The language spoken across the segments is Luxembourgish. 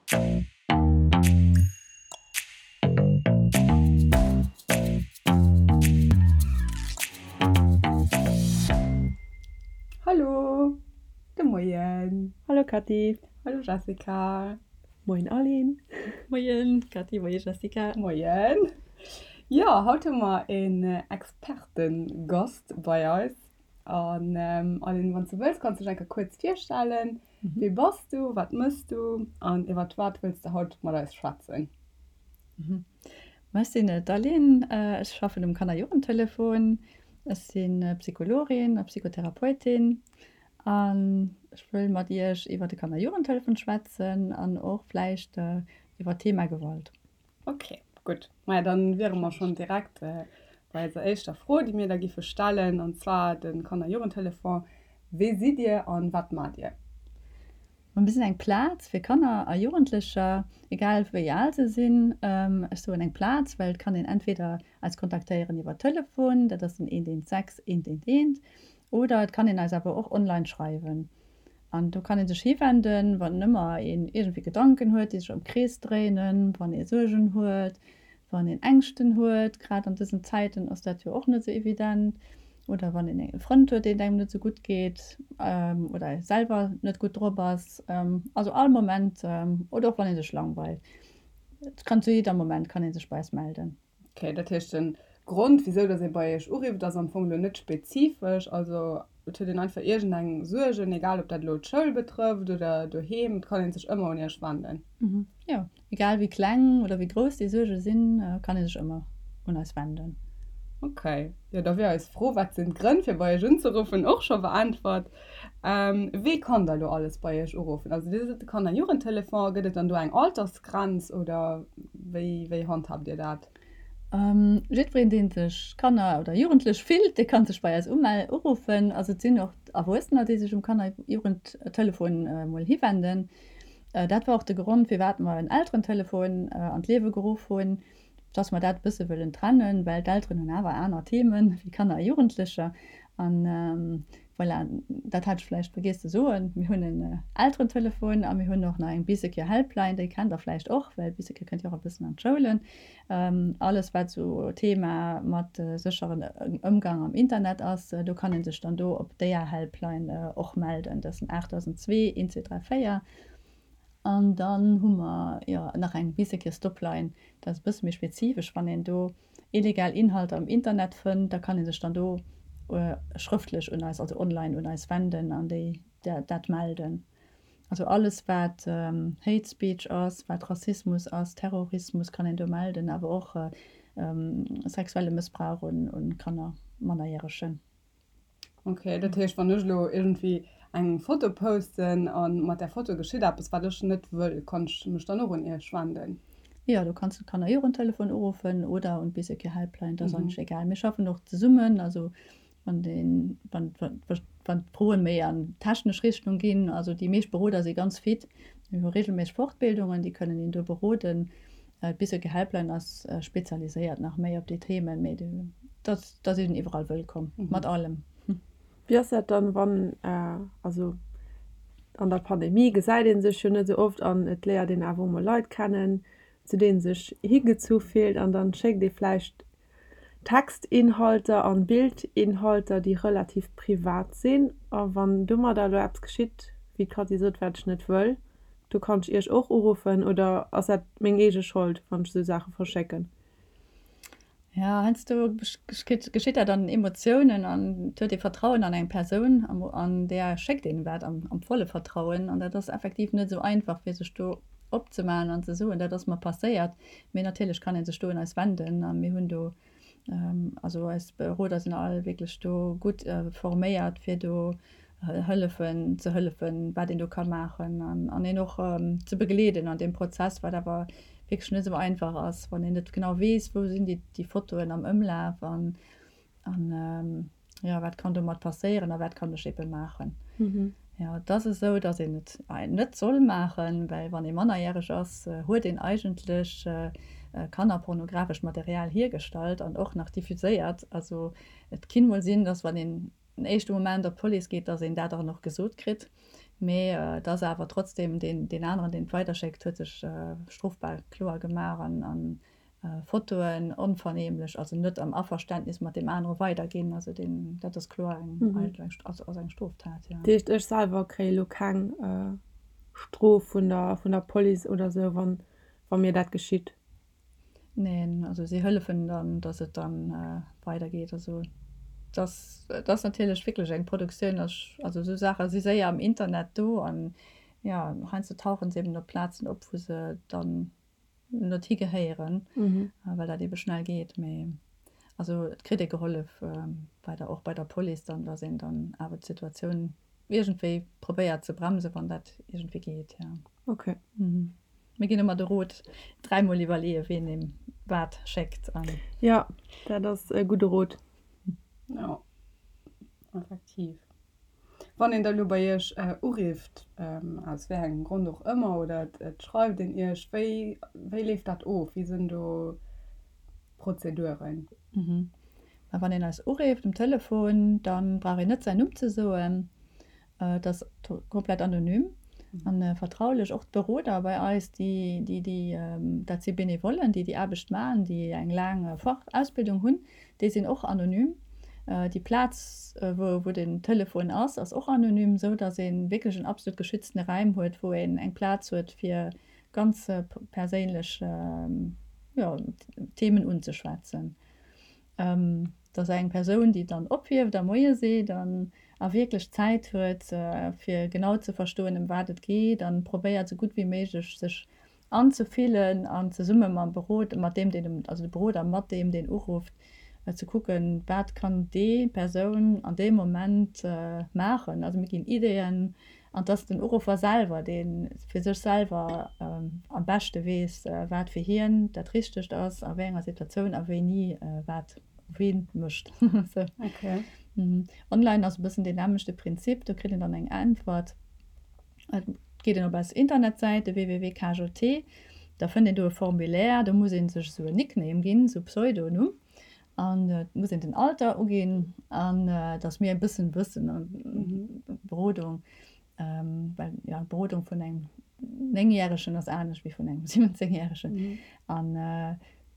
Hallo, de Moien. Hallo Cathy. Hallo Jessica. Moien Aline. Moien Cathy, moie Jessica. Moien. Jo, haut hu mer een Expertengast bei eis. An Aline, wann s du wëlls, kanns du dech eng Kéier kuerz virstellen. Wie bass du, wat mëss du an iwwer wat wëlls de haut mat eis schwätzen? Ma ech sinn d'Aline, ech schaffen um Kanner-Jugendtelefon. Ech si Psychologin a Psychotherapeutin an ech wëll mat iech iwwer de Kanner-Jugendtelefon schwätzen an och vläicht iwwer d'Thema Gewalt. Ok, gutt. Maja, dann wiere mer schonn direkt bei eiser éischter Fro, déi mir da giffe stellen, an zwar de Kanner-Jugendtelefon. Wie sidd Dir an wat maacht Dir? Mir sinn eng Plaz fir Kanner a Jugendlecher, egal wéi al se sinn. Ech soen eng Plaz, well et kann een entweder eis kontaktéieren iwwer Telefon, dat ass den 116 111, oder et kann een eis awer och online schreiwen. An do kann ee sech hiwenden, wann ëmmer een iergendwéi Gedanken huet, déi sech am Krees dréinen, wann ee Suergen huet, wann een Ängschten huet, grad an dësen Zäiten ass dat jo och net esou evident, oder wann een e Frënd huet, deen et engem net esou gutt geet oder ee selwer net gutt drop ass. Also all Moment oder och wann ee sech langweilt. Et kann zu jidder Moment kann ee sech bei eis melden. Ok, dat heescht den Grond wisou dass ee bei iech urifft ass am Fong elo net spezifesch, also et huet een einfach iergend eng Suergen, egal ob dat elo d'Schoul betrëfft oder doheem, et kann een sech ëmmer un iech wenden. Jo, egal wéi kleng oder wéi grouss déi Suerge sinn, kann ee sech ëmmer un eis wenden. Ok, jo da wier eis Fro wat sinn d'Grënn fir bei iech unzeruffen och scho beäntwert. Wee kann da elo alles bei iech uruffen? Also dir sidd de Kanner-Jugendtelefon, gëtt et dann do eng Altersgrenz oder wéi wéi handhabt dir dat? Jiddwereen dee sech Kanner oder Jugendlech fillt, dee kann sech bei eis uruffen. Also et sinn och Erwuessener déi sech um Kanner-Jugendtelefon mol hiwenden. Dat war och de Grond firwat mer en Elterentelefon an d'Liewe geruff hunn. dass mer dat e bësse wëllen trennen, well d'Elteren hunn awer aner Themen wéi Kanner a Jugendlecher. An voilà, dat hat ech vläicht vergiess ze soen, mir hunn en Elterentelefon a mir hunn och nach eng Bee-Secure Helpline, déi kennt Der vläicht och, well Bee-Secure kënnt jo och e bëssen an d'Schoulen. Alles wat esou Thema mat sécheren Ëmgang am Internet ass, do kann ee sech dann do op déier Helpline och melden. Dat ass den 8002 1234. An dann hu mer jo nach eng Bee-Secure Stopline, dat ass e bësse méi spezifesch, wann een do illegal Inhalter am Internet fënnt, da kann ee sech dann do schrëftlech un eis, also online un eis wenden an déi dat melden. Also alles wat Hate Speech ass, wat Rassismus ass, Terrorismus kann een do melden, awer och sexuelle Mëssbrauch un Kanner, Mannerjäregen. Ok, dat heescht wann ech elo iergendwéi eng Foto posten a mat där Foto geschitt eppes wat ech net wëll, kann ech mech dann och un iech wenden? Jo, do kanns du d'Kannerjugendtelefon uruffen oder un d'Bee-Secure Helpline, dat ass eigentlech egal. Mir schaffen och zesummen, also wann deen, wann, wann d'Froen méi an technesch Richtung ginn, also déi meescht Beroder si ganz fit, mir hu regelméisseg Fortbildungen, déi kënnen een do beroden. D'Bee-Secure Helpline ass spezialiséiert nach méi op déi Themen, mee dat Da si en iwwerall wëllkomm, mat allem. Wéi ass dat dann, wann, also an der Pandemie gesäit ee sech jo net esou oft an et léiert een awer emol Leit kennen, zu deenen sech higezu fillt an dann schéckt ee vläicht Textinhalter an Bildinhalter, déi relativ privat sinn. A wann domadder elo eppes geschitt, wéi d'Cathy sot, wat ech net wëll, do kann ech Iech och uruffen oder ass dat meng eege Schold, wann ech esou Saache verschécken? Ja, heiansdo geschitt dat an den Emotiounen an et huet ee Vertrauen an eng Persoun an där schéckt een wat am volle Vertrauen an dat ass effektiv net esou einfach fir sech do opzemaachen an ze soen, dat ass mer passéiert. Mee natierlech kann ee sech do un eis wenden a mir hunn do, also eis Beroder sinn all wierklech do gutt forméiert fir do hëllefen, ze hëllefen, wat een do ka maachen an an een och ze begleeden an deem Prozess, wat awer wierklech net esou einfach ass, wann een net genau weess, wou sinn déi déi Fotoen am Ëmlaf an an jo, wat kann domat passéieren a wat kann ech ebe maachen. Jo, et ass esou, datt een et net soll maachen, well wann ee mannerjäreg ass, huet een eigentlech kannerpornografescht Material hiergestallt an och nach diffuséiert. Also et kinn mol sinn, datt wann een den éischte Moment op d'Police geet, dass een dat dann och gesot kritt. Mee et ass awer trotzdem deen, deen aneren, deen et weiderschéckt, huet sech strofbar kloer gemaach an, an Fotoen onvernehmlech, also net am Averständnis mat deem anere weiderginn. Also deen, dat ass kloer eng, eigentlech eng, also ass eng Stroftat, jo. Dat heescht, ech selwer kréie lo keng Strof vun der, vun der Police oder sou, wann, wa mir dat geschitt? Neen, also si hëllefen dann, dass et dann weidergeet. Also et ass, et ass natierlech wierklech eng Produktioun, also esou Saache si séier am Internet do an jo, heiansdo tauche se eben op Plazen op, wou se dann net higehéieren, well dat ebe schnell geet. Mee also et kritt ee gehollef bei der, och bei der Police dann, dass een dann awer d'Situatioun iergendwéi probéiert ze bremsen, wann dat iergendwéi geet, jo. Okay. Mir ginn ëmmer de Rot, dräimol iwwerleeën, ween eem wat schéckt. An. Jo, dat ass e gudde Rot. Jo, effektiv. Wann een da lo bei Iech urifft, aus wéi engem Grond och ëmmer, oder et schreift een Iech, wéi, wéi leeft dat of? Wéi sinn do d'Prozeduren? Mä wann een eis urifft um Telefon, da brauch een net säin Numm ze soen. Et ass komplett anonym a vertraulech. Och d'Beroder bei eis, déi, déi, déi, dat si Benevollen, déi déi Aarbecht maachen, déi eng laang Fachausbildung hunn, déi sinn och anonym. Déi Plaz, wou, wou den Telefon ass, ass och anonym, esou datt ee wierklech en absolut geschütztene Räim huet, wou een eng Plaz huet, fir ganz perséinlech, jo, Themen unzeschwätzen. Et ass eng Persoun, déi dann ophieft a Moie seet an a wierklech Zäit huet, fir genau ze verstoen, ëm wat et geet an probéiert, esou gutt wéi méiglech sech anzefillen an zesumme mam Beroder, mat deem, deen, also de Beroder mat deem, deen urufft, ze kucken, wat kann déi Persoun an deem Moment maachen. Also mir ginn Ideeën An et ass den Uruffer selwer, dee fir sech selwer am beschte weess, wat fir hien dat Richtegt ass, a wéi enger Situatioun a wéini wat ween mécht. Online ass e bëssen deen nämmlechte Prinzip, do kritt een dann eng Äntwert. Et geet een op eis Internetsäit, de www.kjt, da fënnt een do e Formulaire, do muss ee sech esou en Nickname ginn, esou e Pseudonumm. An et muss een den Alter uginn an dass mir e bëssen wëssen an Berodung, well jo d'Berodung vun engem Néngjäregen ass anescht wéi vun engem Siwwenzéngjäregen. An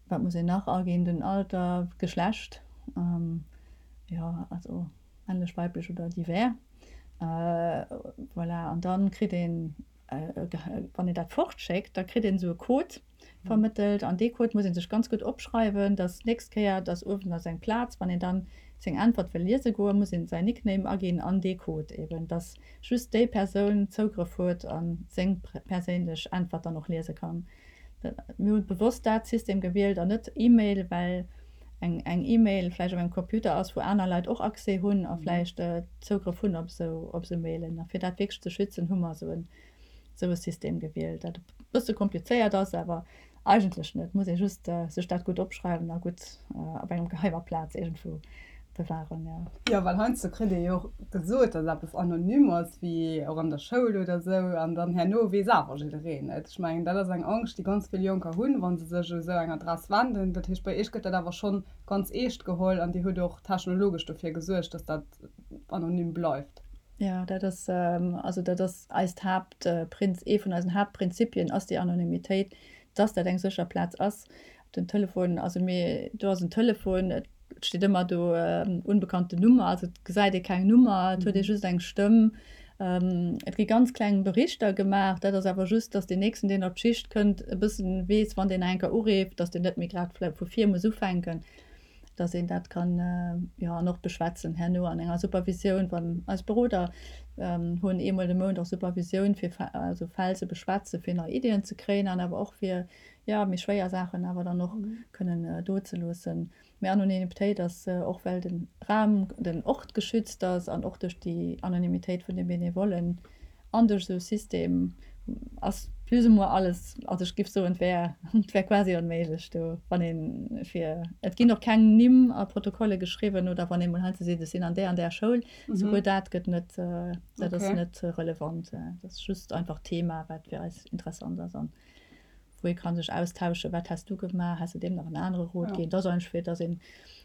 wat muss een nach aginn? Den Alter, d'Geschlecht, jo also männlech, weiblech oder divers. Voilà, an dann kritt een, wann een dat fortschéckt, da kritt een esou e Code. vermëttelt an dee Code muss ee sech ganz gutt opschreiwen, dass d'nächst Kéier, dass uewen ass eng Plaz, wann een dann seng Äntwert wëll liese goen, muss een säin Nickname aginn an dee Code eben, dass just déi Persoun Zougrëff huet a seng perséinlech Äntwert dann och liese kann. Mir hu bewosst dat System gewielt an net E-Mail, well eng eng E-Mail vläicht op engem Computer ass, wou aner Leit och Accès hunn a vläicht Zougrëff hunn op esou op esou Mailen. A fir dat wierklech ze schützen, hu mer esou en esou e System gewielt, dat e bësse komplizéiert ass, awer eigentlech net. Muss ee just sech dat gutt opschreiwen a gutt op engem geheimer Plaz iergendwou bewahren, jo. Jo, well heiansdo kritt ee jo och gesot, datt eppes anonym ass, wéi och an der Schoul oder esou, an dann herno weess awer jiddereen et. Ech mengen, dat ass eng Angscht, déi ganz vill Jonker hunn, wa se sech u esou eng Adress wenden. Dat heescht, bei Iech gëtt dat awer schonn ganz eescht geholl an Dir hutt och technologesch dofir gesuergt, datt dat anonym bleift. Jo, dat ass, also dat ass eist Haaptprinz, ee vun eisen Haaptprinzipien ass déi Anonymitéit, dass dat eng sécher Plaz ass. Den Telefon, also mir, do ass en Telefon, et steet ëmmer do unbekannte Nummer, also et gesäit ee keng Nummer, et huet ee just eng Stëmm. Et gi ganz kleng Berichter gemaach, dat ass awer just, dass deen Nächsten, deen op d'Schicht kënnt, e bëssen weess, wann deen nach eng Kéier ureeft, dass deen net méi grad vläicht vu vir muss ufänken. dass een dat kann, jo, an och beschwätzen herno an enger Supervisioun, wann eis Beroder hunn eemol de Mount och Supervisioun, fir also Fäll ze beschwätzen, fir nei Iddien ze kréien an awer och fir, jo, méi schwéier Saachen awer dann och kënnen do ze loossen. Mee Anonymitéit ass och, well de Raum, den Ort geschützt ass an och duerch déi Anonymitéit vun de Benevollen, An duerch esou e System ass plus ou moins alles, also ech giff soen, et wär, et wär quasi onméiglech do, wann een fir, et ginn och keng Nimm a Protokolle geschriwwen oder wann ee mol heiansdo seet, ech sinn an där an där Schoul, souguer dat gëtt net, dat ass net relevant. Dat ass just einfach d'Thema, wat fir eis interessant ass an wou ee ka sech austauschen, wat häss du gemaach, häss de deem nach en anere Rot ginn. Dat ass einfach fir, datt ee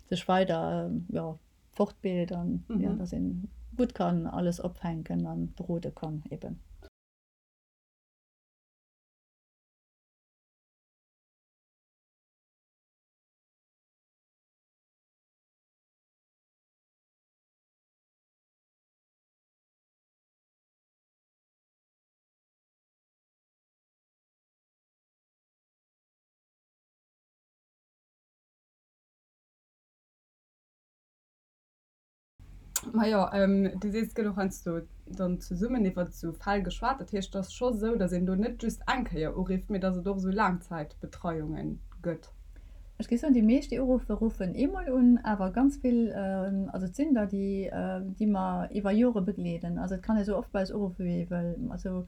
sech weider, jo. fortbild an jo, dass een gutt kann alles opfänken an berode kann eben. Majo, du sees, et gëtt och heiansdo dann zesummen iwwer esou Fäll geschwat. Dat heescht, et ass scho esou, datt een do net just eng Kéier urifft, mee datt et och esou Laangzäitbetreiunge gëtt. Ech géif soen, déi meescht, déi uruffen, ruffen eemol un, awer ganz vill, also et sinn der, déi, déi mer iwwer Jore begleeden. Also et kann ee sou oft bei eis uruffen, wéi ee wëll. Also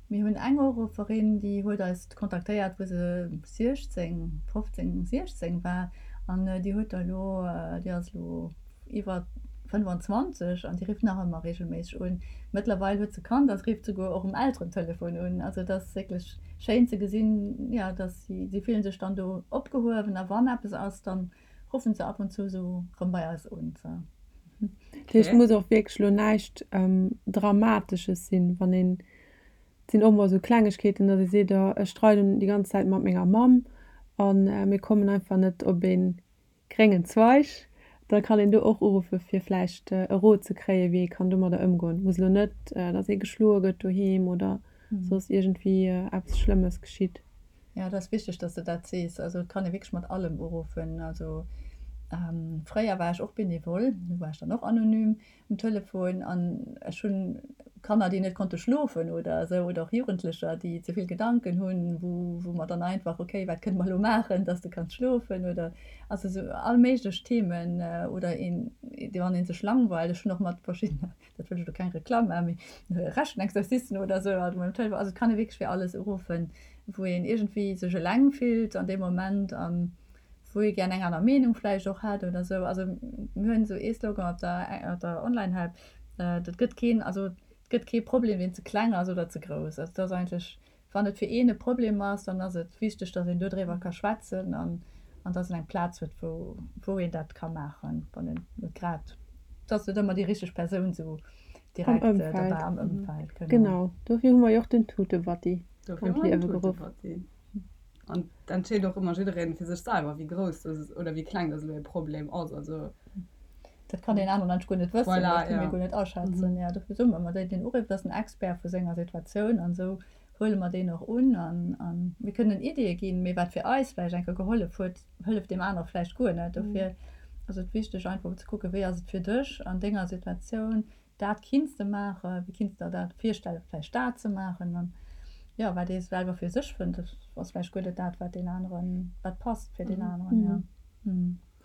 mir hunn eng Urufferin, déi huet eis kontaktéiert, wou se 16, 15, 16 war an déi huet der elo, déi ass elo iwwer 25 an déi rifft nach ëmmer reegelméisseg un. Mëttlerweil huet se Kand a se rifft souguer och um Elterentelefon un. Also et ass wierklech schéin ze gesinn, jo, dass si, si fillen sech dann do opgehuewen a wann eppes ass, dann ruffen se ab und zu esou rëm bei eis un. Dat heescht, et muss och wierklech elo näischt Dramatesches sinn, wann een, et sinn och mol esou Klengegkeeten, datt ee seet, oh ech streiden déi ganz Zäit mat menger Mamm a mir kommen einfach net op ee gréngen Zweig, da kann een do och uruffe fir vläicht e Rot ze kréien, wéi ee kann domadder ëmgoen. Muss elo net, datt ee geschloe gëtt doheem oder soss iergendwéi eppes Schlëmmes geschitt. Jo, dat ass wichteg, datt s de dat sees. Also et kann ee wierklech mat allem uruffen. Also fréier war ech och Benevole, do war ech dann och anonym. um Telefon an ech hunn Kanner, déi net konnte schlofen oder esou oder och Jugendlecher, déi ze vill Gedanken hunn, wou wou mer dann einfach, okay, wat kënne mer elo maachen, dass de kanns schlofen oder also esou all méiglech Themen oder een, wann ee sech langweilt. Ech hunn och mat verschiddene, dat wëll ech elo keng Reklamm maachen, mee Rechenexercicen oder esou alt emol um Telefon. Also et kann ee wierklech fir alles uruffen, wou een iergendwéi sech eleng fillt an deem Moment an wou ee gär eng aner Meenung vläicht och hätt oder esou. Also mir hunn esou ee Slogan op der op der Online-Help, Et gëtt keen, also et gëtt kee Problem, deen ze kleng ass oder ze grouss. Also et ass eigentlech, wann et fir een e Problem ass, dann ass et wichteg, datt een dodriwwer ka schwätzen an an datt een eng Plaz huet, wou wou een dat ka maachen, wann een net grad, et ass net ëmmer déi richteg Persoun esou direkt dobäi am Ëmfeld. Genau. Genau, dofir hu mer jo och den Tutebatti an d'Liewe geruff. An et entscheet och ëmmer jiddereen fir sech selwer, wéi grouss dass oder wéi kleng dass elo e Problem ass. Also. Dat kann deen anere Mensch guer net wëssen, voilà, dat kënne mir guer net aschätzen. Jo, dofir soe mer ëmmer, deen, deen urifft, ass den Expert vu senger Situatioun an esou huele mer deen och un. An, an mir kënnen Ideeë ginn, mee wat fir eis vläicht eng Kéier gehollef huet, hëlleft deem anere vläicht guer net. Dofir ass et wichteg einfach ze kucken, wéi ass et fir dech an denger Situatioun, Dat kinns de maachen, wéi kinns der dat virstellen, vläicht dat ze maachen? An jo, wat ee selwer fir sech fënnt, ass vläicht guer net dat, wat deen aneren, wat passt fir deen aneren, jo.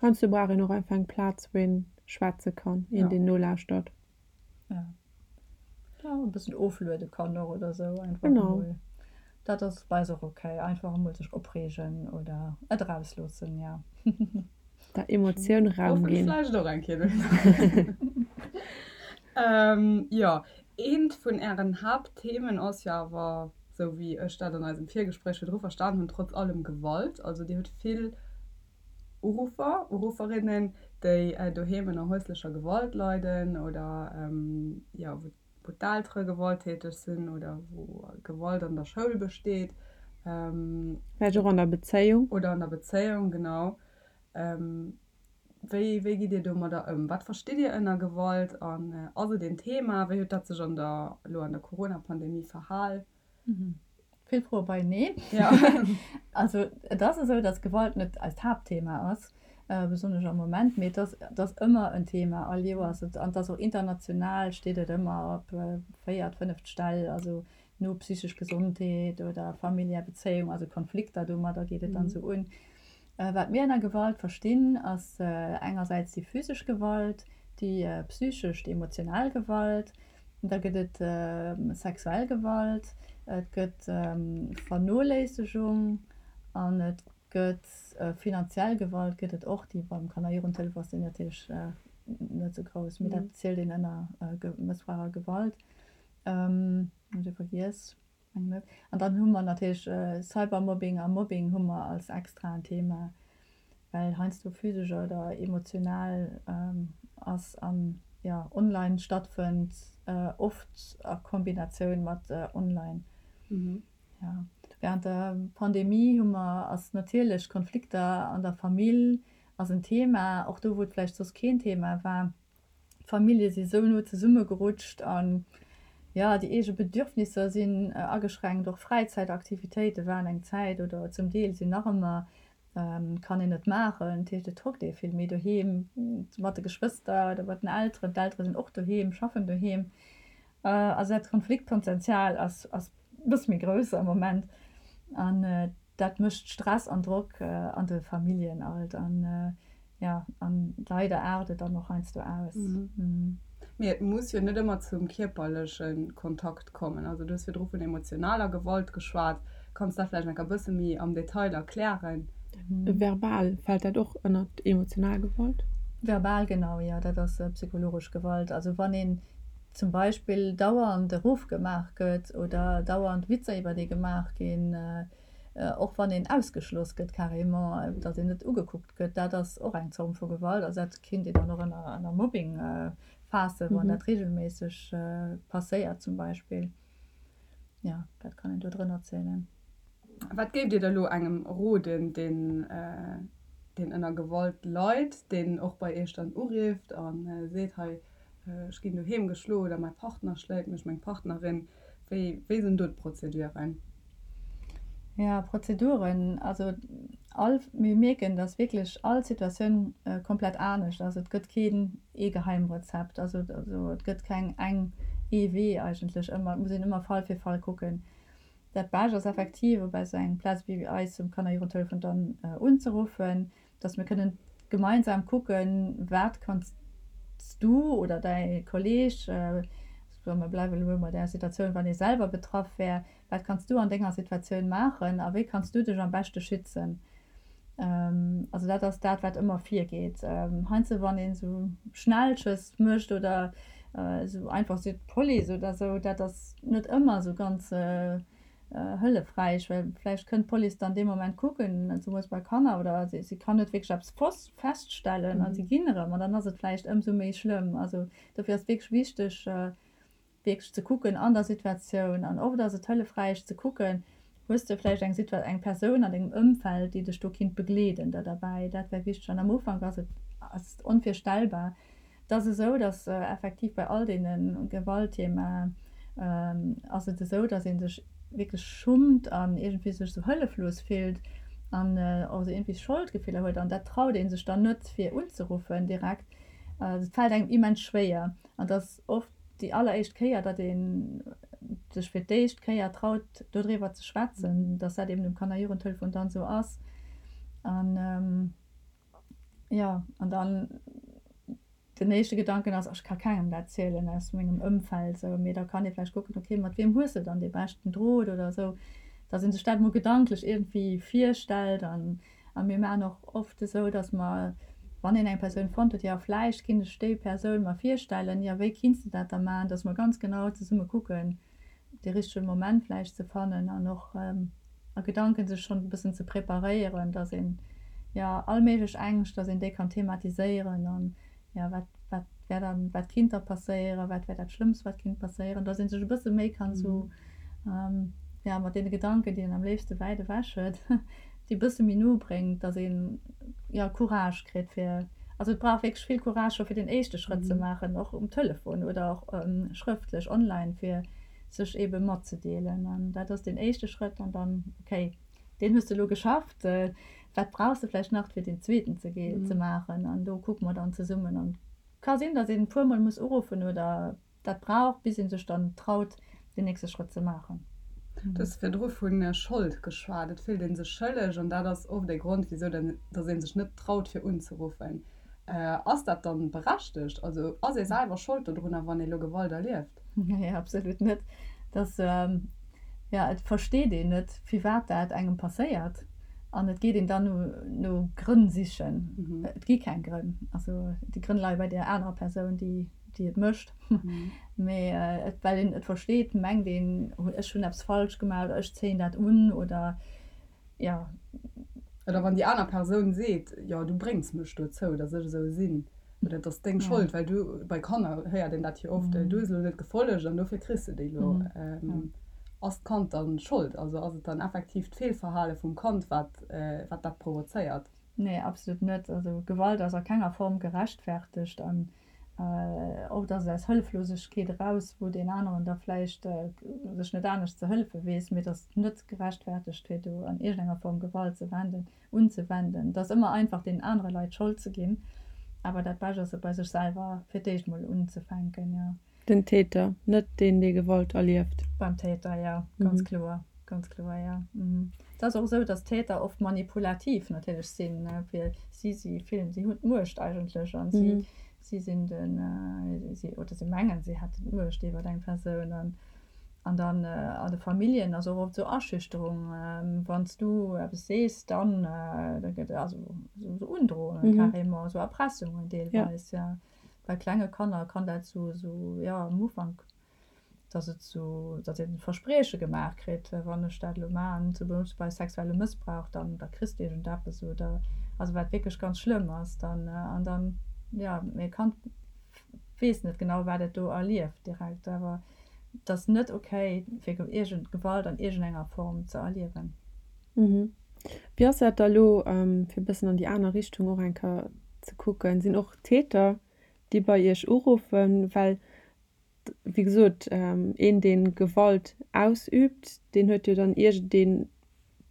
Heiansdo brauch een och einfach eng Plaz, wou een schwätze kann, een, deen nolauschtert. Jo, jo, e bëssen ofluede kann och oder esou einfach emol. Dat ass bei eis och ok, einfach emol sech opreegen oder et erausloossen, jo. Der Emotioun Raum ginn. Vläicht och eng Kéier dohinner. Jo, eent vun Ären Haaptthemen ass jo awer, sou wéi ech dat an eisem Virgespréich virdru verstan hunn, trotz allem Gewalt. Also Dir hutt vill Uruffer, Urufferinnen, déi doheem ënner häuslecher Gewalt leiden oder jo, wou wou d'Eltere gewalttäteg sinn oder wou Gewalt an der Schoul besteet. Vläicht och an der Bezéiung. Oder an der Bezéiung, genau. Wéi, wéi gitt Dir domadder ëm? Wat verstitt Dir ënner Gewalt an ass et een Thema? Wéi huet dat sech an der, elo an der Corona-Pandemie verhal? Vill Froe beieneen. Also et ass esou, datt Gewalt net eist Haaptthema ass, besonnesch am Moment, mee et ass, et ass ëmmer en Thema, all Joers. An et ass och international steet et ëmmer op véiert, fënneft Stell, also no psychesch Gesondheet oder familiär Bezéiung, also Konflikter, domadder geet et dann esou un. Wat mir ënner Gewalt verstinn, ass engersäits déi physesch Gewalt, déi psychesch, déi emotional Gewalt, da gëtt et sexuell Gewalt, et gëtt Vernoléissegung an et gëtt finanziell Gewalt gëtt et och, déi beim Kanner-Jugendhëllef ass déi natierlech net esou grouss, mee dat zielt een ënner Mëssbrauch a Gewalt. Hunn ech ee vergiess? Mengen net. An dann hu mer natierlech Cybermobbing a Mobbing hu mer als extraen Thema. Well heiansdo physesch oder emotional ass an jo online stattfënnt, oft a Kombinatioun mat online. Jo, während der Pandemie hu mer, ass natierlech Konflikter an der Famill ass en Thema, och do wou et vläicht soss keen Thema war. D'Famillje si sou no zesummegerutscht an jo, déi eege Bedürfnisser sinn ageschränkt, och Fräizäitaktivitéite waren eng Zäit oder zum Deel sinn nach ëmmer, kann een net maachen. Dat heescht, et hockt ee vill méi doheem mat de Geschwëster oder mat den Elteren. D'Eltere sinn och doheem, schaffen doheem. Also dat Konfliktpotential ass e bësse méi grouss am Moment an dat mécht Stress an Drock an de Familljen alt an jo, an leider aart et dann och heiansdo aus. Mee et muss jo net ëmmer zum kierperleche Kontakt kommen. Also du hues virdru vun emotionaler Gewalt geschwat. Kanns dat vläicht nach e bësse méi am Detail erklären? Verbal, fält dat och ënnert emotional Gewalt? Verbal, genau, jo, dat ass psychologesch Gewalt. Also wann een zum Beispill dauernd erofgemaach gëtt oder dauernd Witzer iwwer ee gemaach ginn, och wann een ausgeschloss gëtt carrément, datt een net ugekuckt gëtt, dat ass och eng Zorm vu Gewalt. Also dat kinnt een dann och ënner Mobbing faassen, wann dat reegelméisseg passéiert zum Beispill. Jo, dat kann een do drënner zielen. Wat géift Dir da lo engem roden, deen deen ënner Gewalt leit, deen och bei Iech dann urifft a seet, hei ech ginn doheem geschloen oder mäi Partner schléit mech, meng Partnerin, wéi wéi sinn do d'Prozeduren? Jo, Prozeduren, also all, mir mierken, datt wierklech all Situatioun komplett anescht ass. Et gëtt keen ee Geheimrezept, also et gëtt keng eng ee Wee eigentlech ëmmer, et muss een ëmmer Fall fir Fall kucken. Dat Bescht ass effektiv op esou eng Plaz wéi eis um Kannerjugendtelefon dann unzeruffen, dass mir kënnen gemeinsam kucken, wat kanns du oder däi Kolleeg, soe mer bleiwe elo bei där Situatioun, wann ee selwer betraff wär, wat kanns du an denger Situatioun maachen a wéi kanns du dech am beschte schützen. Also dat ass dat, wat ëmmer virgeet. Heiansdo wann een esou Schnellschëss mécht oder esou einfach seet d'Police oder esou, dat ass net ëmmer esou ganz hëllefräich, well vläicht kënnt d'Police dann dee Moment kucken, zemools bei Kanner, oder si kann net wierklech eppes feststellen a si ginn erëm an dann ass et vläicht ëmsou méi schlëmm. Also dofir ass et wierklech wichteg, wierklech ze kucken an der Situatioun an oft ass et hëllefräich ze kucken, hues de vläicht eng Situa eng Persoun an dengem Ëmfeld, déi dech do kinnt begleeden da derbäi. Dat wär wichteg an am Ufank ass et ass et onvirstellbar. Et ass esou, datt effektiv bei all deene Gewaltthemaen ass et esou, datt ee sech wierklech schummt an iergendwéi sech esou hëlleflos fillt an och esou iergendwéi Scholdgefiller huet an dat traut ee sech dann net fir unzeruffen direkt. Et fält engem immens schwéier an et ass oft déi alleréischt Kéier, datt ee sech fir d'éischt Kéier traut, dodriwwer ze schwätzen, datt dat eben um Kanner-Jugendtelefon dann esou ass. An jo, an dann den éischte Gedanken ass, ech ka kengem dat zielen aus mengem Ëmfeld esou, mee da kann ee vläicht kucken, okay, mat wiem hues de dann dee beschten Drot oder esou, datt ee sech dat emol gedanklech iergendwéi virstellt an A mir maachen och oft esou, datt mer, wann een eng Persoun fonnt huet, jo vläicht kinnt ech déi Persoun mer virstellen, jo wéi kinns de dat da maachen, datt mer ganz genau zesumme kucken, dee richtege Moment vläicht ze fannen an och a Gedanken sech schonn e bëssen ze preparéieren, datt een, jo all méiglech Ängscht, datt een déi kann thematiséieren an, jo wat, wat wär dann, wat kinnt da passéieren, wat wär dat Schlëmmst wat kinnt passéieren, datt ee sech e bësse méi kann esou, jo mat deene Gedanken, déi een am léifste wäit ewech huet, déi e bësse méi no bréngt, datt een, jo Courage kritt fir, also et brauch wierklech vill Courage scho fir den éischte Schrëtt ze maachen, och um Telefon oder och schrëftlech online, fir sech eebe matzedeelen an dat ass deen éischte Schrëtt an dann, okay, deen hues de elo geschafft, wat brauchs de vläicht nach fir deen zweeten ze ze maachen an do kucke mer dann zesummen an ka sinn, datt een e puer mol muss uruffen oder dat brauch, bis ee sech dann traut deen nächste Schrëtt ze maachen. Du hues virdru vu Schold geschwat, et fillt ee sech schëlleg an dat ass oft ee Grond wisou datt ee sech net traut fir unzeruffen. Ass dat dann berechtegt? Also ass ee selwer Schold dodrunner wann ee lo Gewalt erlieft? Nee, absolut net. Dass, jo, et versteet een net, firwat dat engem passéiert an et geet een dann no, no Grënn sichen. Et gi keng Grënn. Also déi Grënn leie bei där anerer Persoun, déi, déi et mécht. Mee et, well een et versteet, mengt een, ech hunn eppes falsch gemaach oder ech zéien dat un oder, jo. Oder wann déi aner Persoun seet, jo du bréngs mech dozou, datt ech esou sinn, oder et ass deng Schold, well du, bei Kanner héiert een dat jo oft, du hues elo net gefollegt an dofir kriss de déi elo. Ass d'Kand dann Schold? Also ass et dann effektiv d'Feelverhale vum Kand, wat wat dat provozéiert? Nee, absolut net. Also Gewalt ass a kenger Form gerechtfertegt an oft ass et aus Hëlleflosegkeet eraus, wou deen aneren da vläicht sech net anescht ze hëllefe weess, mee et ass net gerechtfertegt fir do an iergendenger Form Gewalt ze wenden, unzewenden. Et ass ëmmer einfach deenen anere Leit d'Schold ze ginn, awer dat Bescht ass et bei sech selwer fir d'éischt mol unzefänken, jo. Den Täter, net deen, dee Gewalt erlieft. Beim Täter, jo, ganz kloer, ganz kloer, jo. Et ass och esou, datt d'Täter oft manipulativ natierlech sinn, fir si, si fillen, si hunn d'Muecht eigentlech an si, si sinn den, si, oder si mengen, si hätten d'Muecht iwwer eng Persoun. An, an dann an de Familljen ass och oft esou Aschüchterung, Wann s du eppes sees, dann, da gëtt, also esou Undrohungen carrément, esou Erpressungen deelweis, jo. Bei klenge Kanner kann dat sou, sou, jo, am Ufank, dass et sou, dass een Versprieche gemaach kritt, wann ech dat elo maachen, zum Beispill bei sexuellem Mëssbrauch, dann, da kriss de iergendeppes oder, also wat wierklech ganz schlëmm ass dann. An dann, jo, mee e Kand weess net genau, wat et do erlieft direkt, awer et ass net okay, fir iergend Gewalt an iergendenger Form ze erliewen. Wéi ass dat da elo, fir e bëssen an déi aner Richtung och eng Kéier ze kucken, sinn och Täter, déi bei Iech uruffen? Well, wéi gesot, een, dee Gewalt ausüübt, deen huet jo dann iergendee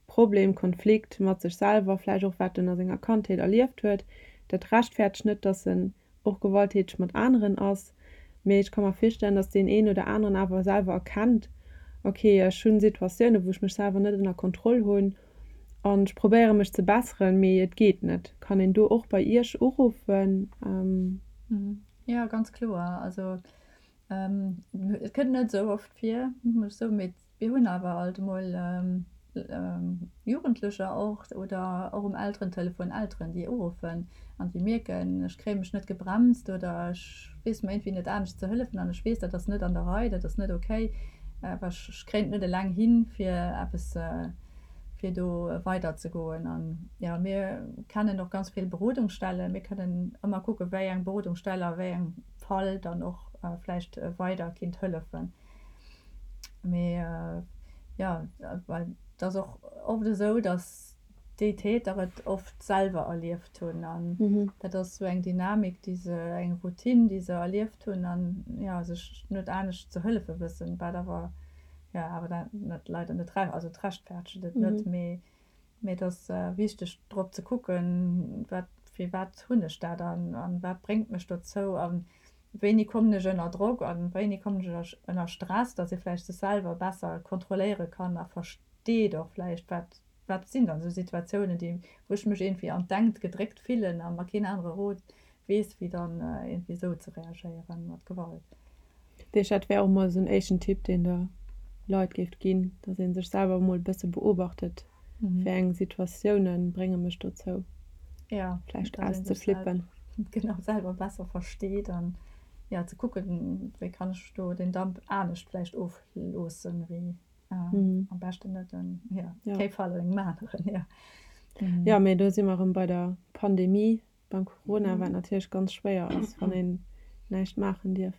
Problem, Konflikt mat sech selwer, vläicht och wat en a senger Kandheet erlieft huet. Dat rechtfäertegt net, datt en och gewalttäteg mat aneren ass, mee ech ka mer virstellen, dass deen een oder aneren awer selwer erkennt, ok, ech hunn Situatiounen, wou ech mech selwer net ënner Kontroll hunn an ech probéiere mech ze besseren, mee et geet net. Kann een do och bei Iech uruffen? Jo, ganz kloer. Also et kënnt net esou oft vir, muss ech soen, mee Mir hunn awer alt emol Jugendlecher och oder och um Elterentelefon Elteren, déi uruffen an déi mierken, ech kréie mech net gebremst oder ech weess mer iergendwéi net anescht ze hëllefen an ech weess, dat ass net an der Rei, dat ass net okay, awer ech kréien et net eleng hin, fir eppes, fir do weiderzegoen. An jo, mir kennen och ganz vill Berodungsstellen. Mir kënnen ëmmer kucken, wéi eng Berodungsstell a wéi engem Fall dann och vläicht weider kinnt hëllefen. Mee jo, well et ass och oft esou, datt déi Täter et oft selwer erlieft hunn an dat ass esou eng Dynamik, déi se, eng Routine, déi se erlieft hunn an jo, sech net anescht ze hëllefe wëssen, wat awer jo awer dat net leider net, also et rechtfertegt et net, mee mee et ass wichteg drop ze kucken, wat firwat hunn ech dat an an wat bréngt mech dozou an Wéini kommen ech ënner Drock an wéini kommen ech ënner Stress, dass ee vläicht sech selwer besser kontrolléiere kann a versteet och vläicht, wat, wat sinn dann esou Situatiounen, déi, wou ech mech iergendwéi an d'Enkt gedréckt fillen a mer keen anere Rot weess, wéi dann iergendwéi esou ze reagéieren mat Gewalt. Dat heescht, dat wär och mol esou en éischten Tipp, deen Der Leit géift ginn, dass ee sech selwer emol e bësse beobachtet, Wéi eng Situatioune brénge mech dozou, vläicht auszeflippen? Genau, selwer besser versteet an jo, ze kucken, wéi kann ech do den Damp anescht vläicht ofloossen, wéi am beschten net en, jo, kee Fall engem aneren, jo. Jo, mee do si mer erëm bei der Pandemie, beim Corona, wat natierlech ganz schwéier ass, wann een näischt maachen dierf.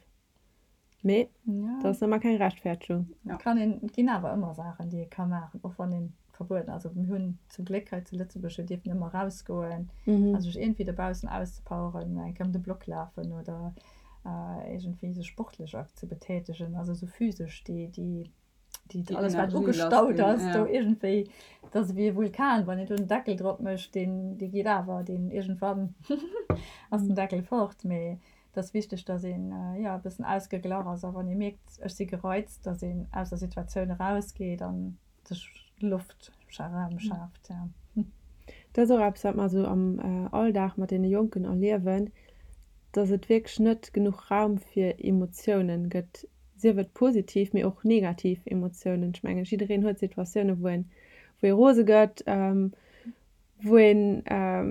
Mee dat ass ëmmer keng Rechtfertegung. Et kann een, et ginn awer ëmmer Saachen, déi ee ka maachen, och wann ee verbueden ass. Also mir hunn zum Gléck hei zu Lëtzebuerg, mir dierfen ëmmer erausgoen a sech iergendwéi dobaussen auszepoweren, eng Kéier ëm de Block lafen oder iergendwéi sech sportlech ze betätegen, also esou physesch déi, déi déi alles wat ugestaut ass do iergendwéi, dat ass ewéi e Vulkan, wann een do den Deckel drop mécht, deen dee geet awer, deen iergendwann ass den Deckel fort. Mee et ass wichteg, datt een jo e bëssen ausgeglach ass a wann ee mierkt, ech si gereizt, datt een aus der Situatioun erausgeet a sech Loft, Raum schaaft, jo. Dat ass och eppes, wat mer esou am Alldag mat deene Jonken erliewen, datt et wierklech net genuch Raum fir Emotiounen gëtt, sief et positiv, mee och negativ Emotiounen. Ech mengen, jiddereen huet Situatiounen, wou een, wou ee rose gëtt, wou een,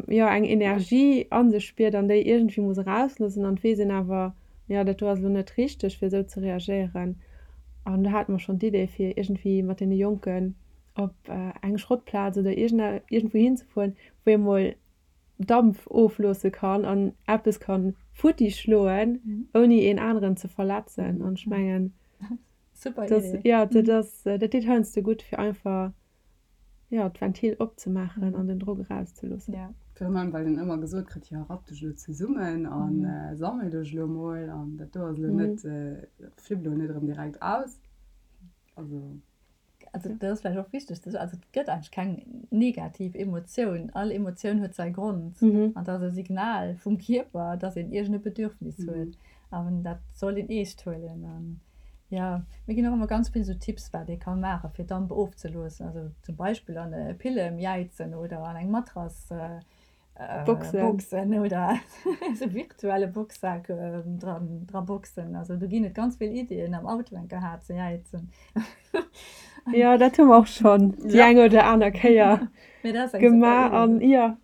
jo, eng Energie a sech spiert an déi iergendwéi muss erausloossen an et weess een awer, jo, dat do ass elo net richteg, fir esou ze reagéieren. An do hate mer schonn d'Idee, fir iergendwéi mat deene Jonken. Op eng Schrottplaz oder iergendwou hinzefueren, wou ee mol Dampf ofloosse kann an eppes ka futti schloen, ouni een aneren ze verletzen. An ech mengen, jo, dat ass, dat deet heiansdo gutt, fir einfach, jo, d'Ventil opzemaachen an den Drock erauszeloossen. Virun allem, well een ëmmer gesot kritt, jo, rapp dech elo zesummen a sammel dech elo mol an dat do ass elo net, flipp elo net erëm direkt aus. Also. Also dat ass vläicht och wichteg ze soen, also et gëtt eigentlech keng negativ Emotioun. All Emotioun huet säi Grond an dat ass e Signal vum Kierper, dass een iergend e Bedürfnis huet an dat soll een eescht huelen. An jo, mir ginn och ëmmer ganz vill esou Tipps, wat ee ka maachen, fir Damp ofzeloossen. Also zum Beispill an e Pillem jäizen oder an eng Matrass Boxen oder esou virtuelle Boxsak dran dra boxen. Also do ginn et ganz vill Iddien am Auto eng Kéier haart ze jäizen. Jo, dat hu mer och schonn déi eng oder aner Kéier gemaach an jo,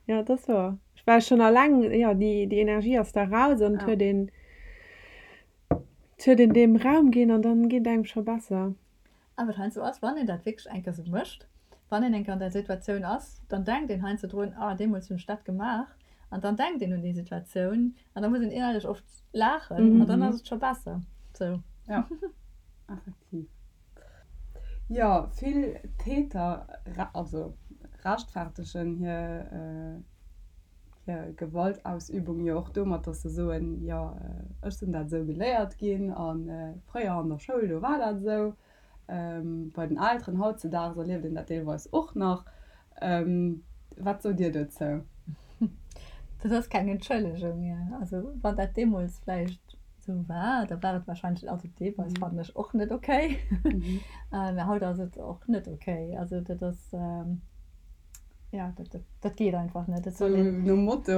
jo, dat ass wouer. Well schonn alleng, jo, déi déi Energie ass da raus an et huet een, et huet een deem Raum ginn an dann geet et engem scho besser. A wat heiansdo ass, wann een dat wierklech eng Kéier esou mécht, wann een eng Kéier an där Situatioun ass, dann denkt een heiansdo drun, ah deemools hunn ech dat gemaach. An dann denkt een un déi Situatioun an da muss een innerlech oft laachen an dann ass et scho besser sou. Jo, effektiv. Jo, vill Täter, also rechtfertegen hir hir Gewaltausübung jo och domat, dass se soen, jo ech sinn dat esou geléiert ginn a fréier an der Schoul, do war dat esou. Bei den Elteren hautzedaags erlieft een dat deelweis och nach. Wat sot Dir dozou? Dat ass keng Entschëllegung. Also wann dat deemools vläicht esou war, da war et warscheinlech, also deelweis fannen ech och net okay, mä haut ass et och net okay. Also dat ass. Ja, dat, dat, dat geet einfach net. Dat soll een. Nom Motto,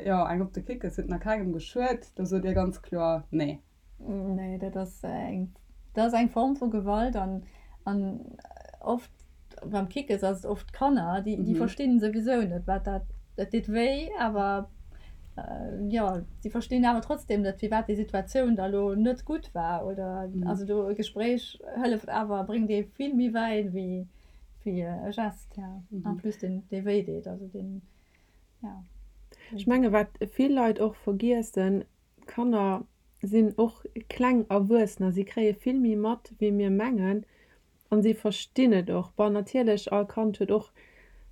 jo, eng op de Kickes huet nach kengem geschuet, do sot Dir ganz kloer nee. Nee, dat ass eng, dat ass eng Form vu Gewalt an, an oft beim Kickes ass et oft d'Kanner, déi, déi verstinn souwisou net, wat dat, dat deet wéi, awer jo, si verstinn awer trotzdem net, firwat déi Situatioun da lo net gutt war oder, also do e Gespréich hëlleft awer, bréngt ee vill méi wäit wéi Wéi e Gest, ja. En plus deen, dee wéi deet, also deen, ja. Ech menge wat vill Leit och vergiessen, d'Kanner sinn och kleng Erwuessener, si kréie vill méi mat wéi mir mengen an si verstinn et och. Bon natierlech all Kand huet och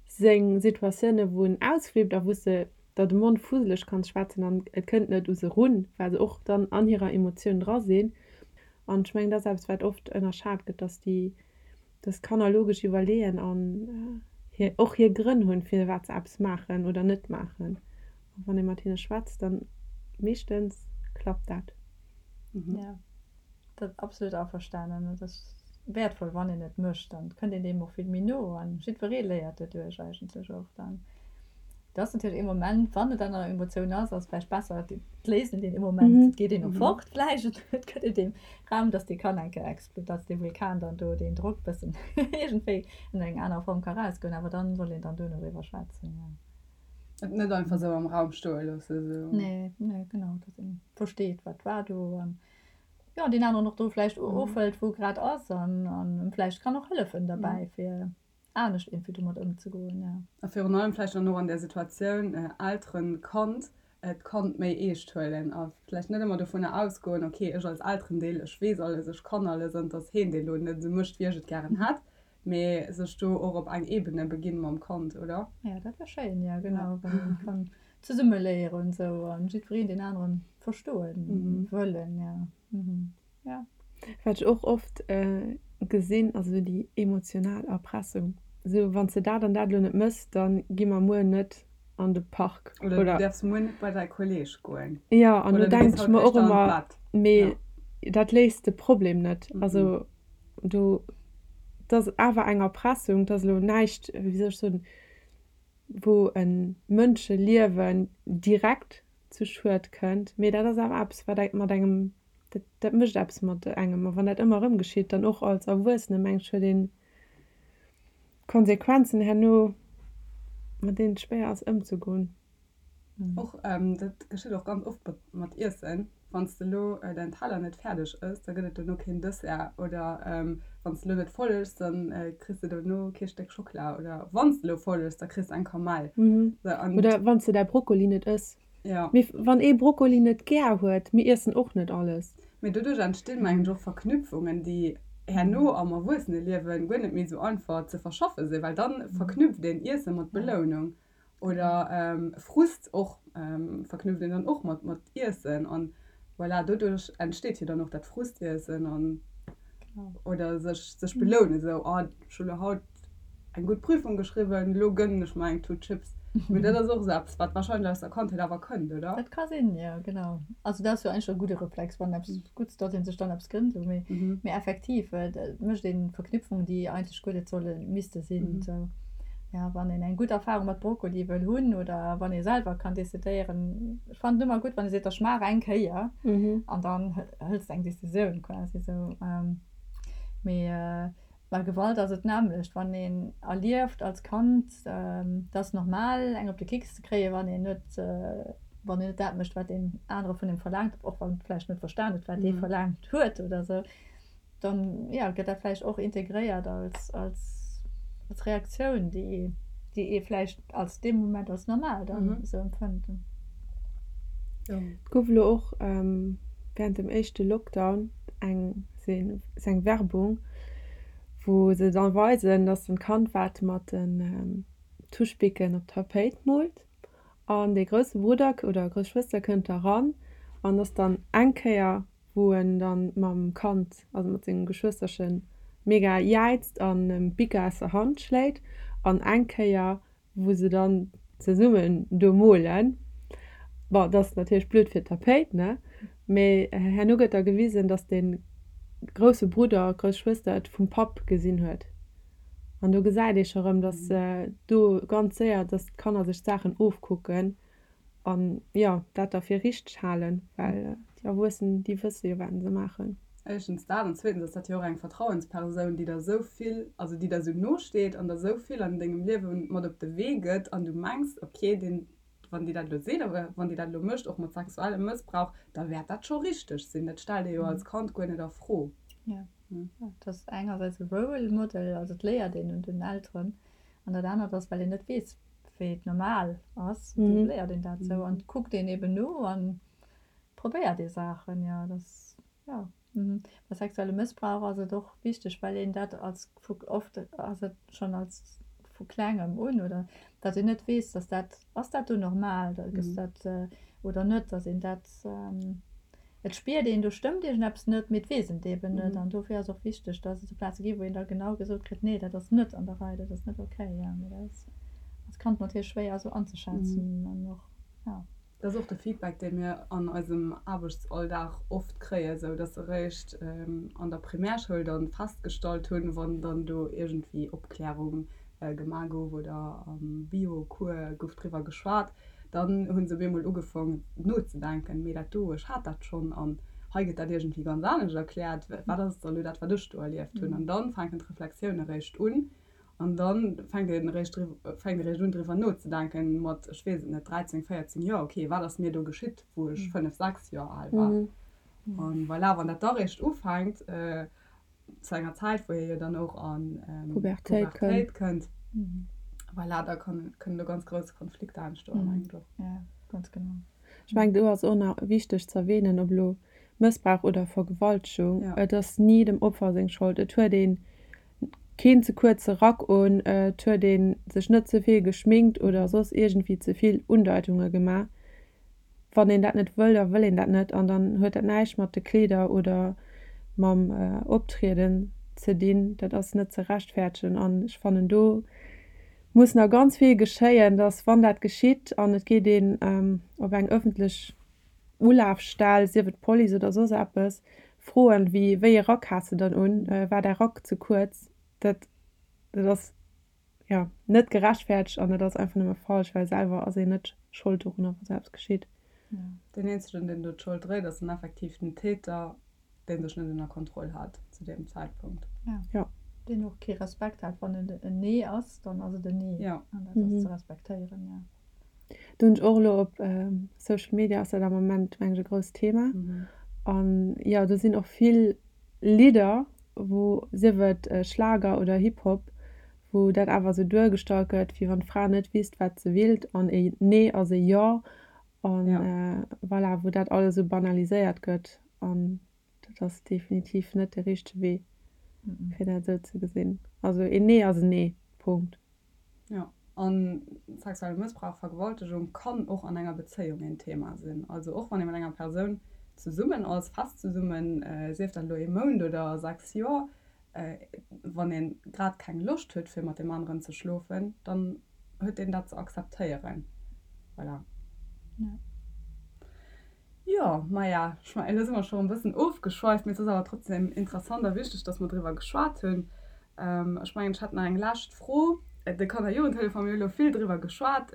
seng Situatioune wou en ausflippt a wou s de der de Mond fuseleg kanns schwätzen an et kënnt net u se run, well se och dann an hirer Emotioun dra sinn. An ech mengen dat ass eppes wat oft ënnerschat gëtt, datt déi Dass d'Kanner logesch iwwerleeën an hir och hir Grënn hunn, firwat se eppes maachen oder net maachen. A wann ee mat hinne schwätzt, dann meeschtens klappt dat. Jo, dat absolut averstanen. Et ass wäertvoll, wann een et mécht, dann kënnt een deem och vill méi no an jiddweree léiert doduerch eigentlech och dann. Et ass natierlech ee Moment, wann et an der Emotioun ass, ass et vläicht besser, et léist een deen Moment, et geet een och fort vläicht, et gëtt een deem Raum, dass dee kann eng Kéier expl-, dass dee Vulkan dann do deen Drock bëssen iergendwéi an eng aner Form ka rausgoen, awer dann soll een dann duerno driwwer schwätzen, jo. Et net einfach esou am Raum stoe loosse, esou. Nee, nee, genau, dass een versteet, wat war do an, jo, deen aneren och do vläicht ofhëlt, wou e grad ass an em vläicht kann och hëllefen derbäi, fir. anescht iergendwéi domat ëmzegoen, ja. A virun allem vläicht dann och an där Situatioun Elteren, Kand, d'Kand méi eescht huelen a vläicht net ëmmer dovunner ausgoen, ok, ech als Elterendeel, ech weess alles, ech kann alles an dass heen dee lo net esou mécht, wéi ech et gären hätt, mee sech do och op eng Ebene beginn mam Kand, oder? Jo, dat wär schéin, jo, genau, wann een kann zesumme léieren esou an jiddwereen deen aneren verstoen wëllen, jo. Ja. Wat ech och oft gesinn, ass esou déi emotional Erpressung. Esou, wann s de dat an dat elo net mëss, da gi mer muer net an de Park. Oder du däerfs muer net bei däi Kolleeg goen. Jo, an do denken ech mer och ëmmer, mee dat léist de Problem net. Also do, et ass awer eng Erpressung, et ass elo näischt, wéi soll ech soen, wou e Mënscheliewen direkt zu Schued kënnt, mee dat ass awer eppes, wat mat engem Dat, dat mécht eppes mat engem. A wann dat ëmmer erëm geschitt, dann och als Erwuessene, mengen ech, huet een Konsequenzen herno, mat deenen et schwéier ass ëmzegoen. Och, dat geschitt och ganz oft mat, mat Iessen. Wann s de elo däin Teller net fäerdeg ëss, da gëtt et dono keen Dessert. Oder wann s de elo net voll ëss, da kriss de dono kee Stéck Schockela. Oder wann s de elo voll ëss, da kriss de eng Kamell. Oder wann s de däi Brokkoli net ëss. Mee wann ee Brokkoli net gär huet, mir iessen och net alles. Mee doduerch entstinn, mengen ech, och Verknüpfungen, déi herno am Erwuesseneliewen guer net méi esou einfach ze verschaffe sinn, well dann verknüpft een Iesse mat Belounung. Oder Frust och verknüpft een dann och mat mat Iessen an voilà, doduerch entsteet jo dann och dat Frustiessen an oder sech sech belounen esou, oh ech hu lo haut eng gutt Prüfung geschriwwen, lo gënnen ech mer eng Tut Chips. Mee dat ass och esou eppes wat wahrscheinlech aus der Kandheet awer kënnt, oder? Dat ka sinn, jo genau. Also dat ass jo eigentlech e gudde Reflex, wann eppes Gutts, datt ee sech dann eppes gënnt esou. Mee mee effektiv et mécht ee Verknüpfungen, déi eigentlech guer net solle misste sinn esou. Jo, wann een eng gutt Erfahrung mat Brokkoli wëll hunn oder wann ee selwer kann decidéieren. Ech fannen et ëmmer gutt, wann ee seet, ech maach eng Kéier an dann hëls de eng Decisioun quasi esou. Mee bei Gewalt ass et d'nämmlecht, wann een erlieft als Kand, et ass normal eng op de Kicks ze kréien, wann een net, wann een net dat mécht, wat deen anere vun engem verlaangt, och wann en vläicht net verstan huet, wat dee verlaangt huet oder esou. Dann ja, gëtt dat vläicht och integréiert als, als, als Reaktioun, déi, déi ee vläicht als dee Moment als normal dann mhm. esou empfënnt. Ja. Et gouf elo och ähm, während dem éischte Lockdown eng, eng Werbung, wou se dann weisen, dass en Kand wat mat den ähm, Tuschbicken op d'Tapéit moolt an dee grousse Brudder oder grouss Schwëster kënnt da ran an ass dann eng Kéier wou en dann mam Kand, also mat sengem Geschwësterchen, mega jäizt an em d'Bicker aus der Hand schléit an eng Kéier wou se dann zesummen do molen, bon dat ass natierlech blöd fir d'Tapéit, ne, mee herno gëtt da gewisen, dass de grousse Brudder, grouss Schwëster et vum Papp gesinn huet an do gesäit ee scho rëm, dass do ganz séier, dass d'Kanner sech d'Saachen ofkucken An jo, dat da fir richteg halen, well déi Erwuessen, déi wësse jo, wat se maachen. Éischtens dat an zweetens ass dat jo och eng Vertrauenspersoun, déi der esou vill, also déi der esou no steet an der esou vill an dengem Liewe mat op de Wee gëtt an du mengs, ok, deen, wann déi dat elo seet oder wann déi dat elo mécht, och mat sexuellem Mëssbrauch, da wäert dat scho richteg sinn. Dat stellt ee jo als Kand guer net a Fro. Jo, dat ass engersäits e Role Model, also et léiert een un den Elteren an dat anert ass, well een net weess, wéi et normal ass, mm -hmm. léiert een dat sou an kuckt een eben no an probéiert ee Saachen ja das ja mm. Bei sexuelle Mëssbrauch ass et och wichteg, well een dat als oft ass et schon als vu klengem un oder dat een net weess, dass dat ass dat do normal, da gëss mm. dat äh, oder net, dass een dat ähm, Et spiert een, do stëmmt iergendeppes net, mee et weess een et eben net. An dofir ass och wichteg, dass et esou Plaze gi wou een da genau gesot kritt, nee, dat ass net an der Rei, dat ass net okay. Jo, mee dat ass als Kand natierlech schwéier esou anzeschätzen an och, jo. Dat ass och de Feedback, dee mir an eisem Aarbechtsalldag oft kréien, esou dass se eréischt an der Primärschoul dann festgestallt hunn, wann dann do iergendwéi Opklärung gemaach gouf oder am Bio-Cours gouf driwwer geschwat, Dann hu se op eemol ugefong nozedenken, mee dat do, ech hat dat schonn an hei gëtt dat iergendwéi ganz anescht erkläert, wat ass da elo dat, wat ech do erlieft hunn? An dann fänken d'Reflexioune eréischt un an da fänkt een eréischt fänkt eréischt un driwwer nozedenken mat, ech weess et net, 13, 14 Joer, okay, wat ass mir do geschitt, wou ech 5, 6 Joer al war? An voilà, wann dat da eréischt ufänkt, zu enger Zäit, wou hie jo dann och an Pubertéit kënnt, voilà, da kënnen do ganz grouss Konflikter entstoen, mengen ech och. Ja, ganz genau. Ech mengen, do ass och nach wichteg ze erwähnen, ob elo Mëssbrauch oder Vergewaltegung, et ass ni dem Opfer seng Schold. Et huet ee keen ze kuerze Rack un, et huet ee sech net ze vill geschminkt oder soss iergendwéi ze vill Undeitunge gemaach. Wann een dat net wëll, da wëll een dat net an dann huet dat näischt mat de Kleeder oder mam Optrieden ze dinn. Dat ass net ze rechtfäertegen an ech fannen do muss nach ganz vill geschéien, dass wann dat geschitt an et geet een op eng ëffentlech Ulafstell, sief et d'Police oder soss eppes, froen, wéi wéi ee Rack has de dann un, war däi Rack ze kuerz, dat dat ass jo, net gerechtfertegt an et ass einfach nëmme falsch, well selwer ass een net Schold dorunner, wa sou eppes geschitt. Deen eenzegen, deen do d'Schold dréit, ass dann effektiv den Täter, dee sech net ënner Kontroll hat zu deem Zäitpunkt. Jo. Deen och kee Respekt hat. Wann et en Nee ass, dann ass et en Nee. An dat ass ze respektéieren, jo. Do hunn ech och elo op Social Media ass dat am Moment meng ech e grousst Thema. An jo, do sinn och vill Lidder, wou, sief et Schlager oder Hip Hop, wou dat awer esou duergestallt gëtt, wéi wann d'Fra net wisst, wat se willt an e Nee ass e Jo an voilà, wou dat alles esou banaliséiert gëtt. An dat ass definitiv net de richtege Wee, fir dat esou ze gesinn. Also een Nee ass en Nee, Punkt. Jo, an sexuelle Mëssbrauch, Vergewaltegung kann och an enger Bezéiung een Thema sinn. Also och wann ee mat enger Persoun zesummen ass, fest zesummen, sief dat elo ee Mount oder 6 Joer, wann ee grad keng Loscht huet fir mat deem aneren ze schlofen, dann huet een dat ze akzeptéieren. Voilà. Jo, maja, ech mengen, elo si mer scho e bëssen ofgeschweift, mee et ass awer trotzdem interessant a wichteg, dass mer driwwer geschwat hunn. Ech mengen, ech hätt nach eng lescht Fro. De Kanner-Jugendtelefon, mir hu elo vill driwwer geschwat.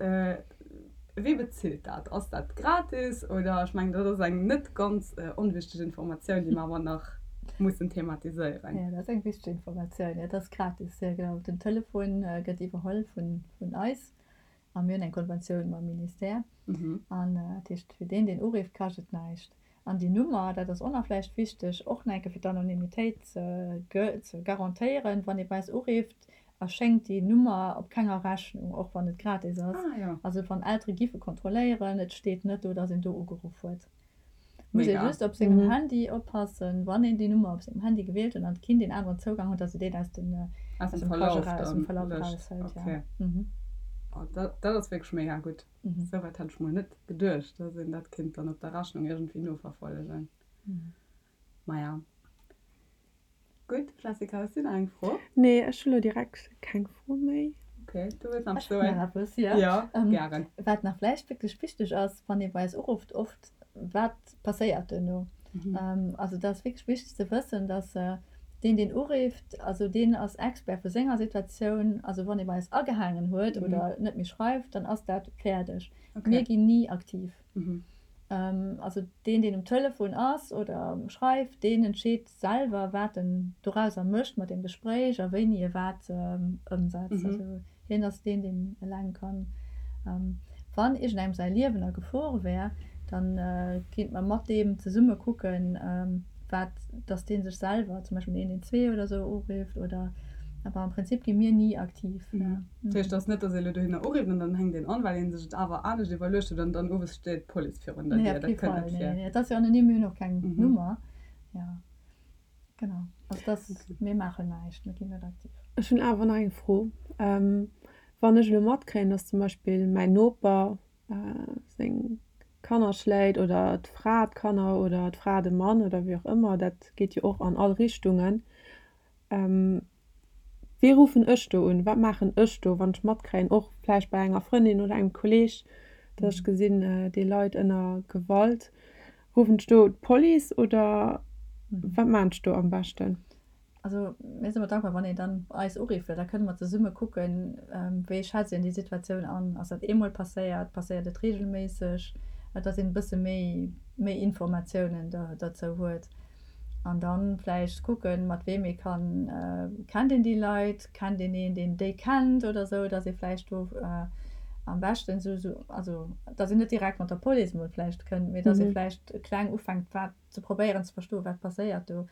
Wee bezilt dat? Ass dat gratis oder? Ech mengen, dat ass eng net ganz onwichteg Informatioun, déi mer awer nach mussen thematiséieren. Jo, dat ass eng wichteg Informatioun. Jo, dat ass gratis, jo, genau. Den Telefon gëtt iwwerholl vun eis. A mir hunn eng Konventioun mam Ministère. An dat heescht, fir deen, deen urifft, kascht et näischt. An déi Nummer, dat ass och nach vläicht wichteg, och nach eng Kéier fir d'Anonymitéit ze garantéieren, wann ee bei eis urifft, erschéngt déi Nummer op kenger Rechnung, och wann et gratis ass. Also wann Eltere giffe kontrolléieren, et steet net do, datt een do ugeruff huet. Muss ee just op sengem Handy oppassen, wann een déi Nummer op sengem Handy gewielt huet an d'Kind een aneren Zougang huet, datt se deen aus dem aus dem Verlauf dann löscht. Okay. Oh, dat dat ass wierklech mega gutt. Souwäit hat ech mol net geduecht, datt een dat kéint dann op der Rechnung iergendwéi noverfollegen. Maja. Gutt, Jessica, hues du nach eng Fro? Nee, ech hu lo direkt keng Fro méi. Ok, du wëlls nach eppes soen? Ech hunn nach eppes, jo. Jo, gären. Wat nach vläicht wierklech wichteg ass, wann ee bei eis urufft, oft, wat passéiert duerno? Also dat ass wierklech wichteg ze wëssen, dass deen, deen urifft, also deen ass Expert vu senger Situatioun. Also wann ee bei eis agehaangen huet oder net méi schreift, dann ass dat fäerdeg. Mir ginn ni aktiv. Also deen, deen um Telefon ass oder schreift, deen entscheet selwer, wat en dorauser mécht mat deem Gespréich a wéini e wat ëmsetzt. Also hien ass deen, deen eleng kann. Wann iergendengem säi Liewen a Gefor wär, da kéinte mer mat deem zesumme kucken, wat, dass dee sech selwer zum Beispill den 112 oder esou urifft oder, awer am Prinzip gi mir ni aktiv. Dat heescht, et ass net, dass ee elo dohinner urifft an dann hänkt een an, well ee sech et awer anescht iwwerluecht huet an dann owes steet d'Police virun der Dier. Dat kënnt net vir. Nee, et ass jo anonym, mir hunn och keng Nummer. Jo, genau. Also dat ass, mir maachen näischt, mir ginn net aktiv. Ech hunn awer nach eng Fro. Wann ech elo matkréien, dass zum Beispill mäin Noper seng Kanner schléit oder d'Fra d'Kanner oder d'Fra de Mann oder wéi och ëmmer, dat geet jo och an all Richtungen, Wee ruffen ech do un? Wat maachen ech do, wann ech matkréien, och vläicht bei enger Frëndin oder engem Kolleeg, datt ech gesinn, dee leit ënner Gewalt? Ruffen ech do d'Police oder wat maachen ech do am beschten? Also mir sinn ëmmer dankbar, wann een dann eis urifft, well da kënne mer zesumme kucken, wéi schätzt een déi Situatioun an? Ass dat eemol passéiert? Passéiert et reegelméisseg? Dass een e bësse méi, méi Informatiounen derzou huet. An dann vläicht kucken, mat weem ee kann, kennt een déi Leit, kennt een een, deen déi kennt oder esou, dass ee vläicht do am beschten esou, esou, also dass een net direkt mat der Police emol vläicht kënnt, mee dass ee vläicht kleng ufänkt, wat ze probéieren ze verstoen, wat passéiert do.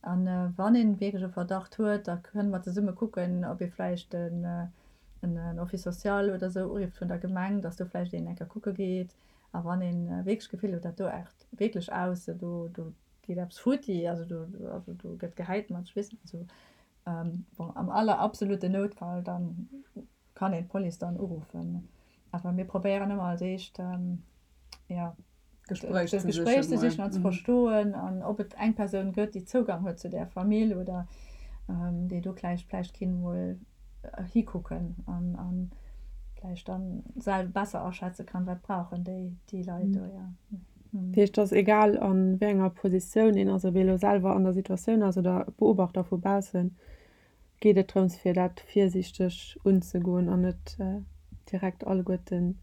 An wann een wierklech e Verdacht huet, da kënne mer zesumme kucken, ob ee vläicht en en Office social oder esou urifft vun der Gemeng, dass do vläicht een eng Kéier kucke geet. A wann ee wierklech d'Gefill huet, dat do aart wierklech aus, do do geet eppes futti, also do also do gëtt gehäit mat, ech weess net, also bon, am aller absoluten Noutfall, dann kann een d'Police dann uruffen. Awer mir probéieren ëmmer als éischt, jo, D'Gespréich ze Gespréich ze sichen an ze verstoen an ob et eng Persoun gëtt, déi Zougang huet zu där Famill oder déi do vläicht vläicht kinnt mol hikucken an an vläicht dann selwer besser aschätze kann, wat brauchen déi déi Leit do, jo. Dat heescht, et ass egal a wéi enger Positioun een ass, ob ee elo selwer an der Situatioun ass oder Beobachter vu baussen, geet et drëms fir dat virsiichteg unzegoen an net direkt alleguerten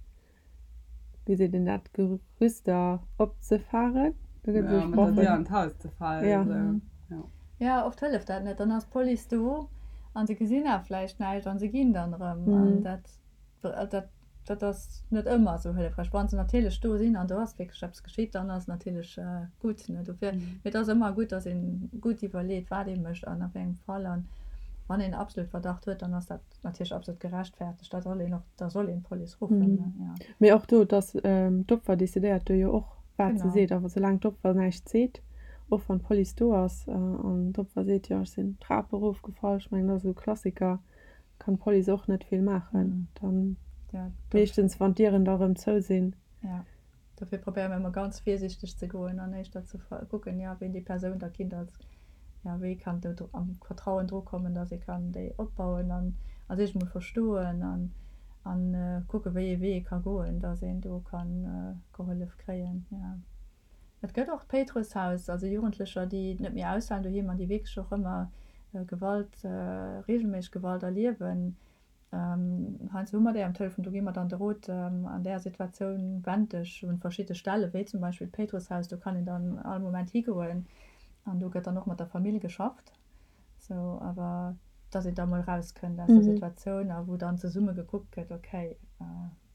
wéi seet een dat, Gerüster opzefaren? Do gëtt esou mat der Dier an d'Haus ze falen. Ja. Esou, ja. Oft hëlleft dat net. Dann ass d'Police do an se gesinn awer vläicht näischt an se ginn dann erëm. An dat, dat. Dat ass net ëmmer esou hëllefräich. Wann se natierlech do sinn an do ass wierklech eppes geschitt, dann ass et natierlech gutt, ne. Dofir, mee et ass ëmmer gutt, datt ee gutt iwwerleet, wat ee mécht an a wéi engem Fall. An wann een absolut Verdacht huet, dann ass dat natierlech absolut gerechtfertegt. Da soll een och, da soll een d'Police ruffen, ne, jo. Mee och do, dass d'Opfer decidéiert do jo och, wat se seet. A soulaang d'Opfer näischt seet, och wann d'Police do ass an d'Opfer seet, jo ech sinn d'Trap erofgefall, ech mengen dat ass esou e Klassiker, kann d'Police och net vill maachen. Dann meeschtens wann d'Dieren da rëm zou sinn. Jo, dofir probéiere mir ëmmer ganz virsiichteg ze goen an éischter ze kucken, jo ween déi Persoun da kinnt als, jo wéi kann do am Vertrauen dru kommen, datt ee kann déi opbauen an a sech emol verstoen an an kucke wéi ee Wee ee ka goen, datt een do ka gehollef kréien, jo. Et gëtt och d'Péitrusshaus, also Jugendlecher, déi net méi aushalen doheem an déi wierklech och ëmmer Gewalt, reegelméisseg Gewalt erliewen. Heiansdo hu mer déi am Telefon, do gi mer dann de Rot, an där Situatioun wend dech un verschidde Stellen, wéi zum Beispill d'Péitrusshaus, do kann een dann all Moment higoen an do gëtt dann och mat der Famill geschafft, sou awer dass een da mol erauskënnt aus der Situatioun a wou dann zesumme gekuckt gëtt, okay,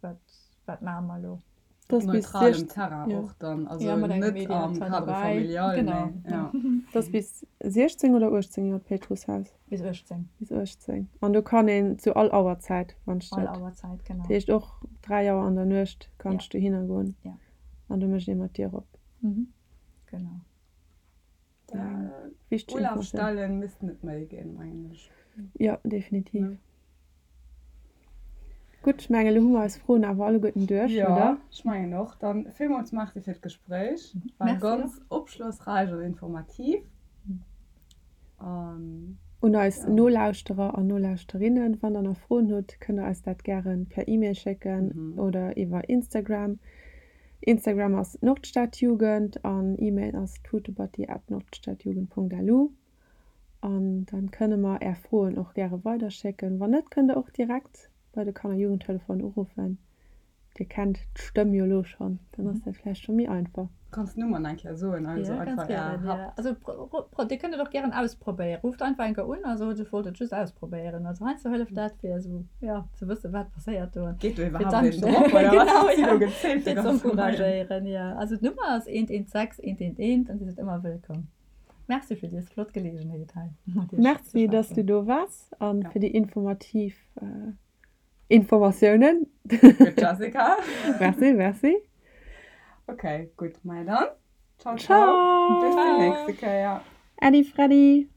wat, wat maache mer elo. Das bis neutralem Terrain och dann, also net am Cadre familial, mee ja. Das bis 16 oder 18 Joer d'Péitrusshaus? Bis 18. Bis 18. An do kann een zu all Auerzäit, wann ech dat. All Auerzäit, genau. Dat heescht och 3 Auer an der Nuecht kanns du dohinner goen. Ja. An do mécht ee mat d'Dier op. Mhm, genau. Wichteg Informatioun. Ulafstellen missten et méi ginn, mengen ech. Jo, definitiv. Gutt, ech mengen, elo hu mer eis Froen awer alleguerten duerch, oder? Jo, ech mengen och. Dann villmools Merci fir d'Gespréich. War ganz opschlossräich an informativ. An. Un eis Nolauschterer an Nolauschterinnen, Wann der nach Froen hutt, kënnt der eis dat gäre per E-Mail schécken oder iwwer Instagram. Instagram ass Nordstadjugend an E-Mail ass tutebatti at nordstadjugend.lu. An dann kënne mer är Froen och gäre weiderschécken. Wann net, kënnt der och direkt bei de Kanner-Jugendtelefon uruffen. Dir kennt d'Stëmm jo elo schonn, dann ass dat vläicht scho méi einfach. Kanns d'Nummer nach eng Kéier soen? Also ja, ganz gären, ja. Also dir kënnt et och gären ausprobéieren. Rufft einfach eng Kéier un a sot, ech wollt et just ausprobéieren. Also heiansdo hëlleft dat fir esou, ja, ze wëssen, wat passéiert do. Geet do iwwerhaapt een drop oder wat? Genau, ja. Fir ze encouragéieren, ja. Also d'Nummer ass 116 111 an Dir sidd ëmmer wëllkomm. Merci fir dës flott Geleegenheet hei mat Iech ze schwätzen. Merci, dass du do waars a fir déi informativ Informatiounen. Gutt Jessica. Merci, merci. Ok, gutt, maja dann. Ciao, ciao. Bis déi nächste Kéier. Äddi Freddi.